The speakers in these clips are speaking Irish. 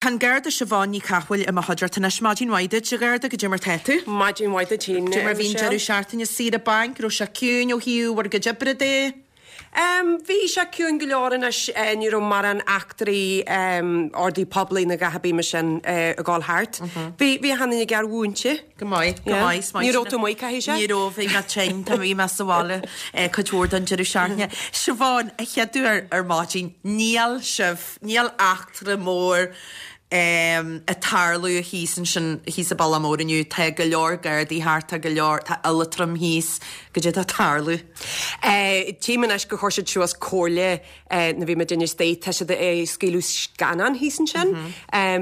Tá an Garda Siobhán Ní Chathmhaoil i mo chuideachta anois. Maidin mhaith duit, a Gharda, goidé mar tá tú? Maidin mhaith duit féin, Goidé mar bhí an Michelle. deireadh seachtaine saoire bainc, raibh sé ciúin ó thaobh bhur gcuid oibre de? Bhí sé ciúin go leor anois, ní raibh mórán eachtraí ordaí poiblí ná a dhath ar bith mar sin ag dul thart. Bhí, bhí achan duine gearr-mhúinte. Go maith, go maith. Yeah. Ní raibh tú amuigh, caithfidh sé? Ní raibh, bhí mé tinn, tá, bhí mé sa bhaile cuid mhór den deireadh seachtaine. Siobhán, a chéaduair ar maidin, níl sibh, níl eachtra mór ag tarlú thíos ansin, thíos i Bealach Mór inniu. Tá go leor Gardaí thart, tá go leor, tá Oilitriom thíos. Goidé atá ag tarlú? Tchím anois gur chuir siad suas comhairle nuair bhí muid istigh, tá siad ag scaoileadh scannán thíos ansin.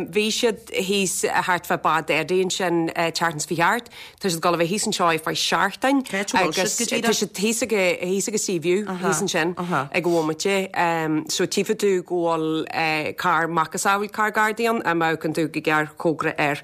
Bhí siad thíos thart fá Bád Eddie ansin tseachtain seo chuaigh thart. Tá siad ag dul a bheith thíos anseo ar feadh seachtain Cá háit a bhfuil agus siad go díreach? tá siad thíos ag thíos ag Seaview thíos ansin ag an bhomaite. So tchífidh tú go bhfuil carr macasamhail carr Gardaí ann, má amharcann tú go gearrchóngarach air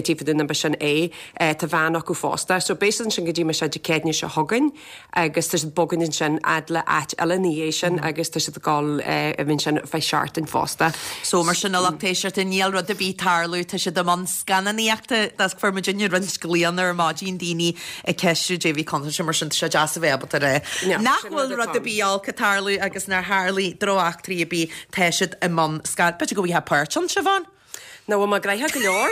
tchífidh tú an b'shin é. Tá veain acu fosta. So beidh siad ansin go dtí mar sin Dé Céadaoine seo chugainn agus tá siad ag bogadh ansin fhad le áit eile ina dhiaidh sin agus tá siad ag dul a bheith ansin ar feadh seachtain fosta. So mar sin a lucht éisteachta níl rud ar bith ag tarlú, tá siad i mbun scannánaíochta, fuair muidinne roinnt glaonna ar maidin, daoine ag ceistiú goidé a bhí contúirteach mar sin tá sé deas a bheith ábalta a rá nach bhfuil rud ar bith olc ag tarlú agus nár tharlaigh drocheachtraí ar bith, tá siad i mbun scan, b'fhéidir go bhfaighfeá páirt ann, Siobhán? Nach bhfuil mé gnoitheach go leor?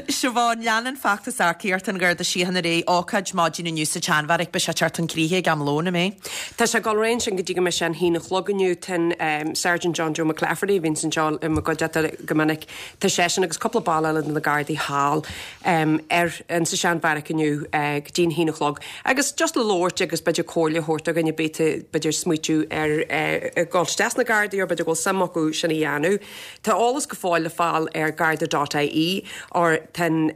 Siobhán, Leanann feachtas earcaíochta an Gharda Síochána ar aghaidh, ócáid maidin inniu sa tSeanbheairic, beidh sé ag teacht chun críche ag am lóin, an mbeidh? Tá sé ag dul ar aghaidh ansin go dtí go mbeidh sé an haon a chlog inniu. Tá an Sergeant John Joe McClafferty, a bhíonns anseo i mo gcuideachta go minic, tá seisean agus cúpla ball eile de na Gardaí thall ar in sa Seanbheairic inniu go dtí an haon a chlog. Agus just le labhairt agus b'fhéidir comhairle a thabhairt do dhuine ar bith atá b'fhéidir ag smaoitiú ar dhul isteach sna Gardaí or b'fhéidir go bhfuil suim acu sin a dhéanamh. Tá eolas go fóill le fáil ar garda dot ie or tá an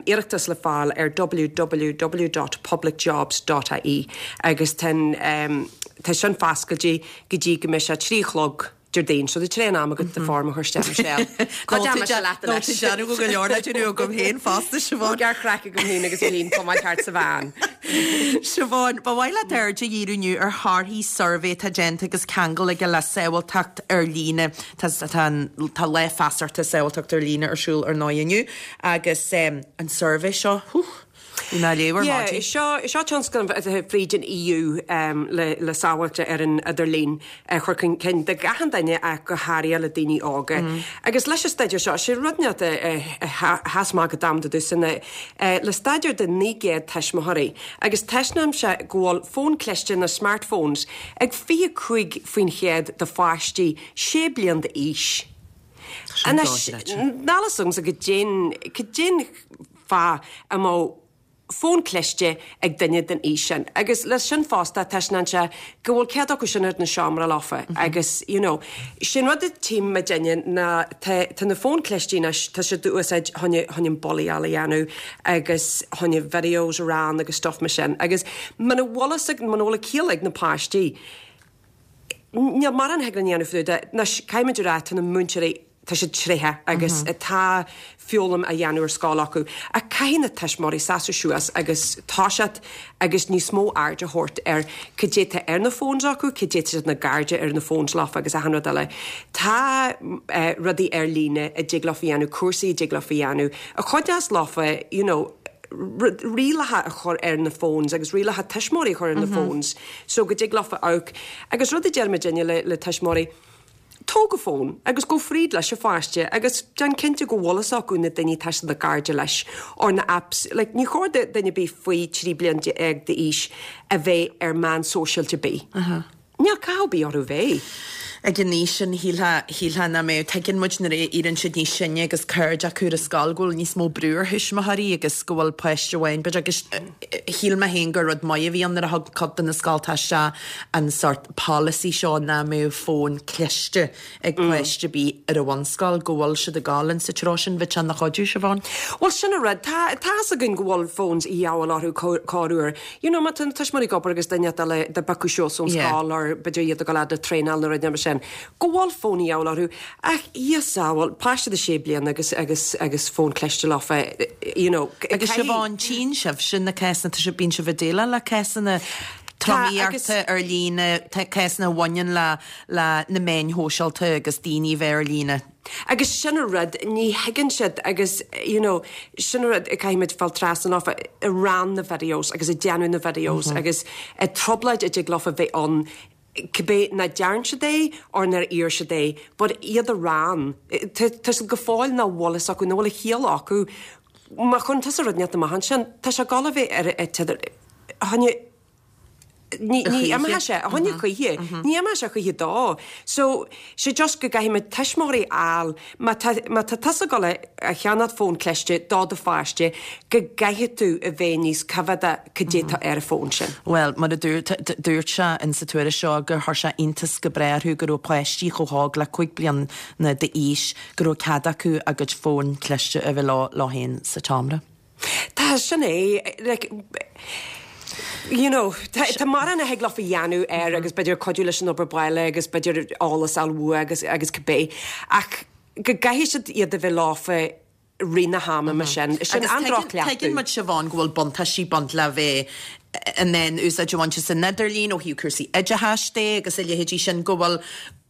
iarratas le fáil ar www dot publicjobs dot ie agus tá an tá sin foscailte go dtí go mbeidh sé 3 a chlog Déardaoin. So tá tréan am agat do form a chur isteach Michelle. Ná tú déanamh go leor le déanamh agam féin fosta Siobhán. Gearr-chraic agam féin agus Eileen tá mé thart sa veain. Siobhán, ba mhaith leat aird a dhíriú inniu ar thorthaí suirbhé atá déanta agus ceangal aige le sábháilteacht ar líne. Tá tá an tá Lá Feasachta Sábháilteacht ar Líne ar siúl ar ndóigh inniu agus an suirbhé seo, hú, bhí mé á léamh ar Yeah, maidin. seo seo tionscnamh atá fríd an EU le le sábháilte ar an idirlíon a chur chun cinn do gach aon duine ach go háirithe le daoine óga. Agus leis an staidéar seo, sé rud inteacht a a sheas amach go domsa domhsa ná le staidéar de 900 tuismitheoirí agus taispeánann sé go bhfuil fón cliste nó smartphones ag 25% de pháistí 6 bliain d'aois. Anois, níl fhios agamsa goidé'n, goidé'n fáth a mbeadh fón cliste ag duine den aois sin. Agus leis sin fosta, taispeánann sé go bhfuil cead acu sin ar na seomra leofa agus, you know, sé'n rud a tchím muidinne ná tá, tá na fóin clistí anois, tá siad á úsáid chun, chun an bullaíáil a dhéanamh agus chun videos a run agus stuff mar sin. Agus muna bhfuil fhios ag, muna bhfuil a ciall ag na páistí, Níl mórán a thig linn a dhéanamh fá dtaobh de. Anois, caithfimid a rá, tá na múinteoirí, tá siad tréitheach agus tá foghlaim á dhéanamh ar scoil acu. Ach caithfidh na tuismitheoirí seasamh suas agus toiseacht agus níos mó aird a thabhairt ar cad é tá ar na phones acu, cad é tá siad na gcairde ar na phones leofa agus achan rud eile. Tá rudaí ar líne a dtig leofa a dhéanamh, cúrsaí a dtig leofa a dhéanamh, a chuideos leofa, you know, rialacha a chur ar na phones agus rialacha tuismitheoirí a chur ar na phones so go dtig leofa amharc. Agus rud a deir muidinne le le tuismitheoirí, tóg an fón agus gabh fríd leis an pháiste agus déan cinnte go bhfuil fhios acu na daoine atá siad ina gcairde leis or na apps, like ní chóir do duine ar bith faoi 13 bliain d'aois a bheith ar meán sóisialta ar bith. Níl cathú ar bith orthu bheith. Ag an aois sin, shílfeá, shílfeá nach mbeadh. Tuigeann muid nuair a éiríonn siad níos sine agus cairde acu ar an scoil go bhfuil níos mó brú ar thuismitheoirí agus go bhfuil páiste amháin, b'fhéidir, agus shíl mé féin gur rud maith a bhí ann nuair a thug cuid de na scolta isteach an sórt polasaí seo nach mbeadh fón cliste ag páiste ar bith ar an bhunscoil, go bhfuil siad ag dul insa treo sin, bheadh sé ina chuidiú, Siobhán. Bhuel, sin an rud. Tá, tá fhios againn go bhfuil phones a dhíobháil orthu corruair. You know, má tá na tuismitheoirí ag obair agus duine eile dá bpiocadh suas ón scoil or b'fhéidir iad ag dul fhad le traenáil nó rud mar sin, go bhfuil fón a dhíobháil orthu. Ach, Dhia sábháil, páiste de sé bliana agus, agus, agus fón cliste leofa, you know. Agus Siobhán, tchíonn sibhse na cásanna, tá sibh, bíonn sibh ag déileáil le cásanna. Tromaíochta ar líne, cásanna a bhaineann le le na meáin shóisialta agus daoine a bheith ar líne. Agus sin an rud, ní thuigeann siad agus you know sin an rud a caithfimid fáil trasna leofa, ag rán na videos agus ag déanamh na videos agus an trioblóid a dtig leofa bheith ann cibé nach dtearn siad é or nár iarr siad é but iad a rán, tá siad go fóill nach bhfuil fhios acu, nach bhfuil a chiall acu má chuireann tusa rud inteacht amach ansin, tá sé ag dul a bheith ar an t-idir, choinne. Ní imeoidh sé, a choinne choíche, ní imeoidh sé choíche dó. So, sé just go gcaithfidh muid tuismitheoirí a fháil, má tá, má tá tusa ag dul a cheannacht fón cliste do do pháiste, go gcaithfidh tú a bheith níos coimhéadach cad é tá ar an bhfón sin. Bhuel, mar a dúirt, dúirt sé in sa tuairisc seo gur chuir sé iontas go breá orthu go raibh páistí chomh hóg le 5 bliana d'aois go raibh cead acu a gcuid fón cliste a bheith leo, leo féin sa tseomra. Tá, sin é, like, you know, tá, tá mórán a thig leofa a dhéanamh air agus b'fhéidir cuidiú leis an obair baile agus b'fhéidir eolas a fháil uaidh agus, agus cibé. Ach go gcaithfidh siad iad a bheith leofa rith na hama mar sin. Sin Agus an tuigeann, droch-chleachtadh. tuigeann muid, Siobhán, go bhfuil buntáistí ag baint le bheith in ann úsáid a bhaint as an idirlíon ó thaobh cúrsaí oideachais de agus a leithéidí sin, go bhfuil,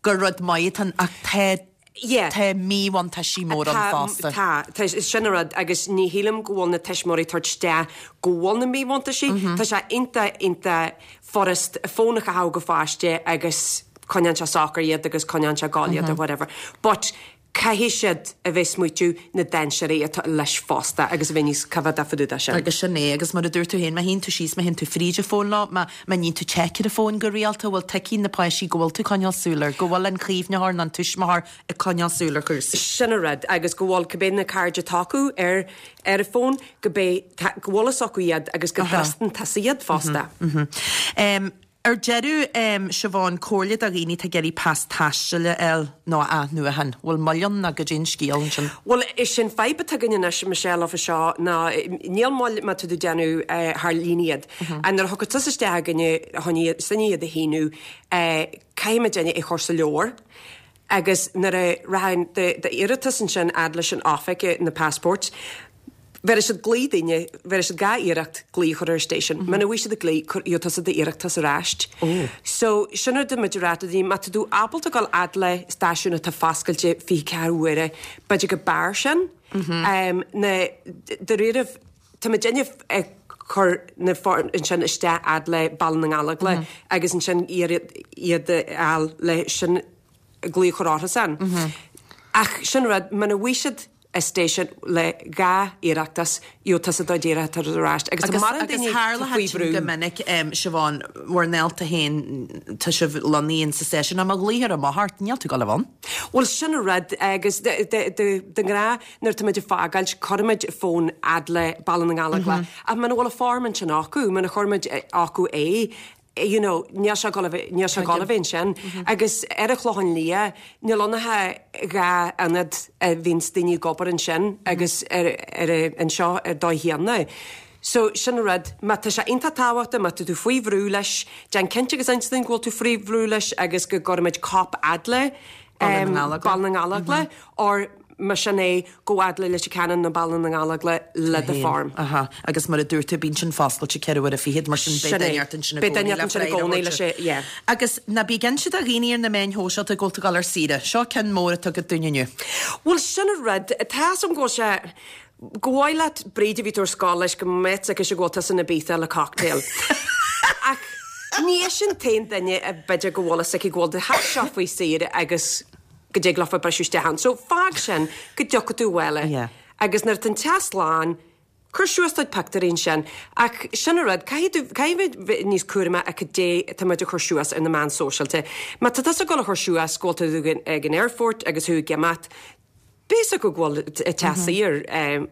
gur rud maith atá ann ach tá Yeah. Tá míbhuntáistí mór ann fosta. Tá, tá, sin an rud agus ní shílim go bhfuil na tuismitheoirí ag tabhairt isteach go bhfuil na míbhuntáistí. Tá sé iontach, iontach furast fón a chaitheamh go pháiste agus coinneann sé socair iad agus coinneann sé ag gol iad or whatever. But caithfidh siad a bheith smaoitiú na dainséirí atá leis fosta agus a bheith níos coimhéadach fá dtaobh de sin. Agus sin é, agus mar a dúirt tú féin, má shuíonn tú síos, má théann tú fríd an fón leo, má, Má níonn tú check ar an bhfón go rialta, bhfuil tuigfidh na páistí go bhfuil tú ag coinneáil súil air, go bhfuil an caomhnaitheoir nó an tuismitheoir ag coinneáil súil ar chúrsaí. Sin an rud, agus go bhfuil cibé na cairde atá acu ar ar an bhfón, go bé, go bhfuil fhios acu iad agus go dtrustann tusa iad fosta. Ar deireadh, Siobhán, comhairle do dhaoine atá ag iarraidh pas taistil a fháil nó a athnuachan. Bhfuil moill ann nó goidé an scéal ansin? Bhuel, is é an fadhb atá againn anois, Michelle, fá seo ná níl moill má tá tú ag déanamh thar líne iad. Nuair a thiocfaidh tusa isteach againne chun sinne iad a shíniú, caithfimid é a chur sa leabhar agus nuair a rachaidh d'iarratas ansin fhad leis an oifig, na passports, bhéarfaidh siad glao duine, bhéarfaidh siad dhá iarracht glao a chur ar an station. Muna bhfaighidh siad an glao, gheobhaidh tusa d'iarratas ar ais. So, sin rud a muid a rá do daoine, má tá tú ábalta dul fhad le stáisiún atá foscailte 24 uaire, b'fhéidir go b'fhearr sin. Na, dáiríribh, Tá muidinne ag cur na foirm ansin isteach fhad le Baile na nGallóglach agus ansin iarraidh iad a fháil le sin glao a chur orthusan. Ach sin rud, muna bhfaighidh siad an station le dhá iarrachtas, gheobhaidh tusa do d'iarratas ar ais. Agus tá mórán Agus daoine tharla faoi sin bhrú. go minic, Siobhán, bhur ndálta féin, tá sibh lonnaithe in sa stáisiún, ach má ghlaoitear amach ort, níl tú ag dul a bheith ann. Bhuel, sin an rud, agus de ghnáth nuair atá muid ag fágáilt, cuirimid fón fhad le Baile na nGallóglach, ach muna bhfuil an form ansin acu, muna chuir muid acu é, you know, níl sé ag dul a bheith, níl sé ag dul a bheith ansin. Agus ar an Chlochán Liath, níl ann ach dhá ionad a bhíonns daoine ag obair ansin agus ar, ar, anseo ar dóigh chéanna. So, sin an rud, má tá sé iontach tábhachtach, má tá tú faoi bhrú leis, déan cinnte agus inis dúinn go bhfuil tú faoi bhrú leis agus go gcuirfimid cóip fhad le Baile na nGallóglach. Baile na nGallóglach or más sin é, gabh fhad le Leitir Ceanainn nó Baile na nGallóglach le do form. Aha, agus mar a dúirt tú, bíonn sin foscailte ceithre huaire fichead, mar sin beidh duine ort ansin i Beidh gcónaí duine le ort ansin i freagra a gcónaí le thabhairt. sé, yeah. Agus ná bí ag inse do dhaoine ar na meáin shóisialta go bhfuil tú ag dul ar saoire. Seo ceann mór atá agat dúinn inniu. Bhuel, sin an rud, tá 'fhios a'm go bhfuil sé, Go mhaith leat Bríd a bhí tú ar scoil leis go mbeadh aici go bhfuil tusa in Ibiza le cocktail. Ach ní hé sin an t-aon duine a b'fhéidir go bhfuil fhios aici go bhfuil do theach seo faoi saoire agus go dtig leofa briseadh isteach ann. So fág sin go dtiocfaidh tú abhaile Yeah. agus nuair atá an teach slán, cuir suas do chuid pictiúirí ansin. Ach sin an rud, caithfidh tú, caithfidh muid bheith níos cúramaí a cad é atá muid a chur suas ar na meáin sóisialta. Má tá tusa ag dul a chur suas go bhfuil tú ag an aerfort agus thú ag imeacht, B'fhios acu go bhfuil teach saor.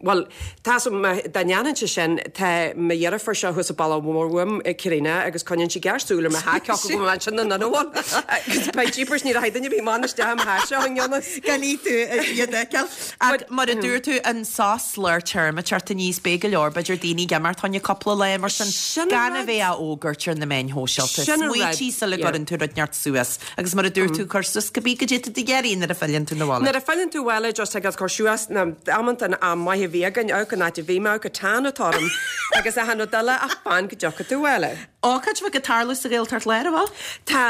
Bhuel, tá 'fhios a'm, dá ndéanfainnse sin, tá mo dheirfiúr seo thuas an bealach mór uaim, Karina, agus coinníonn sí géar súil ar mo theach, cé acu go bhfuil ansin nó nach bhfuil. Agus beidh jeepers, ní rachaidh duine ar bith amach isteach i mo theach seo i ngan fhios. Gan í tú iad a fheiceáil. Ach mar a dúirt tú, an sos lár téarma ag teacht aníos, beidh go leor, b'fhéidir, daoine ag imeacht fá choinne cúpla lá mar sin, gan a bheith á fhógairt ar na meáin shóisialta. Smaoitigh sula gcuireann tú rud inteacht suas. Agus mar a dúirt tú, cuir suas cibé goidé atá tú ag iarraidh nuair a philleann tú 'na bhaile. Nuair a philleann tú abhaile. just ag cur suas na amanta an am maith a bhí againn, amharc an áit a bhí mé, amharc an tan atá orm agus achan rud eile ach fan go dtiocfaidh tú abhaile. Ócáid bheag ag tarlú sa Ghaeltacht Láir, an bhfuil? Tá,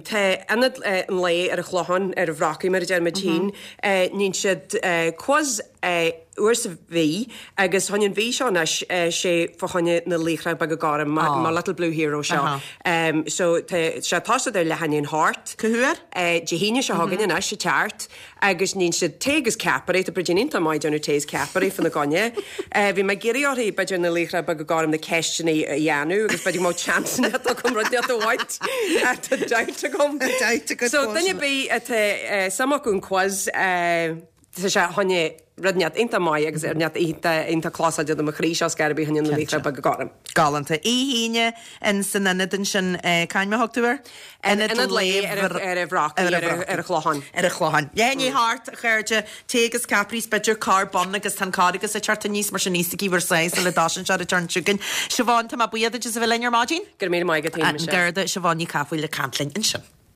tá Ionad an Lae ar an Chlochán, ar an Bhrocaigh mar a deir muid féin, níonn siad quiz uair sa mhí agus fá choinne an mhí seo anois sé fá choinne na Laochra Beaga Gorm, my little blue hero seo. So tá sé tosaithe ar leath i ndiaidh a hocht. Cá huair? Dé hAoine seo chugainn anois ag teacht. Agus níonn siad tae agus ceapairí, tá Bridín iontach maith ag déanamh tae is ceapairí fá na gcoinne. Bhí mé ag iarraidh orthu, b'fhéidir na laochra beaga gorm na ceisteanna a dhéanamh agus b'fhéidir go mbeadh chance agam rud inteacht a bhaint. Tá doubt agam. Doubt agat So duine ar bith atá suim acu an quiz, tá sé fá choinne rud inteacht iontach maith agus rud inteacht iontach iontach closáilte do mo chroí seo scairbí fá choinne na laochra beaga gorm. Galánta. Oíche Aoine in san ionad ansin, c'ainm a thug tú air? Ionad Lae ar an Bhrocaigh, ar an Chlochán. Ar an Chlochán. Leath i ndiaidh a hocht, a chairde, tae agus ceapairí is b'fhéidir carr bonn agus tá an carr agus ag teacht aníos mar sin íosfaidh bhur sáith sula dtosaíonn sé ar an turn chugainn. Siobhán, tá mé buíoch duit as a bheith linn ar maidin. Go raibh míle maith agat, An Garda Siobhán Ní Cathmhaoil ag caint linn ansin.